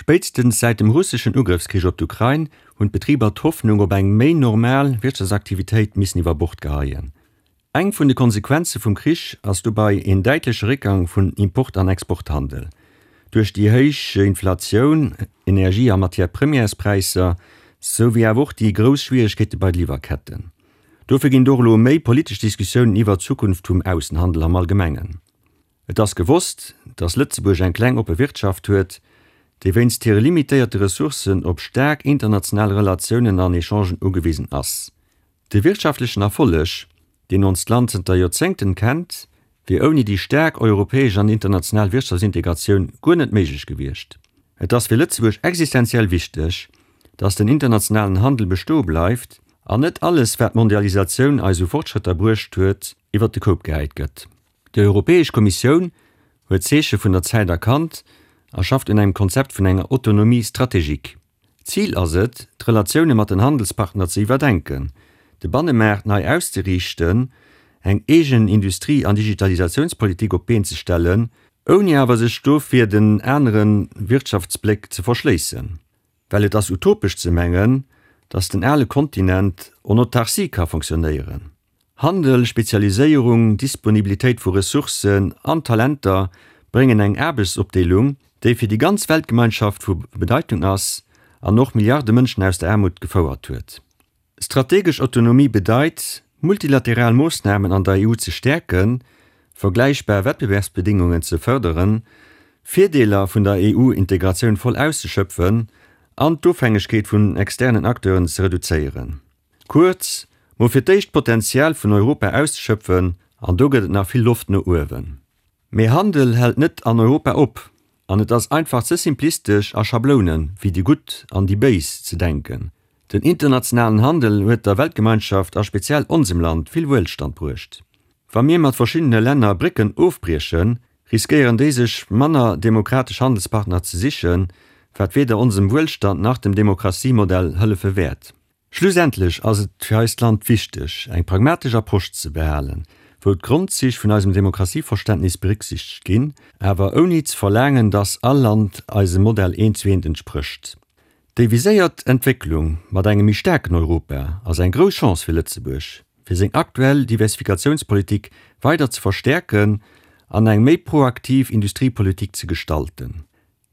Spéitstens säit dem russeschen Ugrëffskrich op d'Ukrain hunn d'Betriber d'Hoffnung op eng méi normal Wirtschaftsaktivitéit missen iwwer Bord geheien. Eng vun de Konsequenze vum Krich ass dobei een däitleche Réckgang vun Import an Exporthandel. Duerch déi héich Inflatioun, Energie a Matière-premièrespräisser, sou wéi awer och déi grouss Schwieregkeete bei de Liwwerketten. Dofir ginn et och elo méi politesch Diskussiounen iwwer d'Zukunft vum Aussenhandel am Allgemengen. Et ass gewosst, datt Lëtzebuerg eng kleng oppe Wirtschaft huet, déi wéinst hire limitéierte Ressourcen op staark international Relatiounen an Echangen ugewisen ass. De wirtschaftlechen Erfolleg, deen onst Land zënter Joerzéngten kennt, wier ouni déi staark europäesch an international Wirtschaftsintegratioun guer net méiglech gewiescht. Et ass fir Lëtzebuerg existenziell wichteg, datt den internationalen Handel bestoe bleift an net alles, wat d'Mondialisatioun eis u Fortschrëtter bruecht huet, iwwert de Koup gehäit gëtt. Déi Europäesch Kommissioun huet d'Zeeche vun der Zäit erkannt a schafft un engem Konzept vun enger Autonomie stratégique. Zil ass et, d'Relatioune mat den Handelspartner ze iwwerdenken, de Bannemaart nei auszeriichten, eng eegen Industrie an Digitalisatiounspolitik op d'Been ze stellen, ouni awer sech dofir den anere Wirtschaftsbléck ze verschléissen. Well et ass utopesch ze mengen, datt den ale Kontinent en autarcie ka fonctionnéieren. Handel, Spezialiséierung, Disponibilitéit vu Ressourcen an Talenter bréngen eng Aarbechtsopdeelung, déi fir déi ganz Weltgemeinschaft vu Bedeitung ass an och Milliarde Mënschen aus der Aarmut gefouert huet. Strategesch Autonomie bedeit, multilateral Moossnamen an der EU ze stäerken, vergläichbar Wettbewerbsbedingungen ze fërderen, Virdeeler vun der EU-Integratioun voll auszeschöpfen an d'Ofhängegkeet vun externen Acteuren ze reduzéieren. Kuerz, mol fir d'éischt d'Potenzial vun Europa auszeschöpfen, an do gëtt et nach vill Loft no uewen. Mee Handel hält net an Europa op, an et ass einfach ze simplistesch a Schablounen, wéi déi Gutt an déi Béis, ze denken. Den internationalen Handel huet der Weltgemeinschaft a speziell onsem Land vill Wuelstand bruecht. Wa mir mat verschiddene Länner Brécken ofbriechen, riskéieren déi sech manner demokratesch Handelspartner ze sichen, wat weder onsem Wuelstand nach dem Demokratiemodell hëllefe wäert. Schlussendlech ass et fir eist Land wichteg, eng pragmatesch Approche ze behalen, wou d'Grondzich vun eisem Demokratieverständnis berücksichtegt ginn, awer ouni ze verlaangen, dass all Land eisem Modell eent zu eent entsprécht. Déi viséiert Entwécklung mat engem méi staarken Europa ass eng grouss Chance fir Lëtzebuerg, fir seng aktuell Diversifikatiounspolitik weider ze verstäerken an eng méi proaktiv Industriepolitik ze gestalten.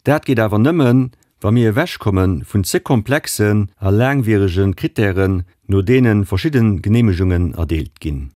Dat geet awer nëmmen, wa mir ewechkomme vun ze komplexen a laangwierege Krittären, no deene verschidde Geneemegungen erdeelt ginn.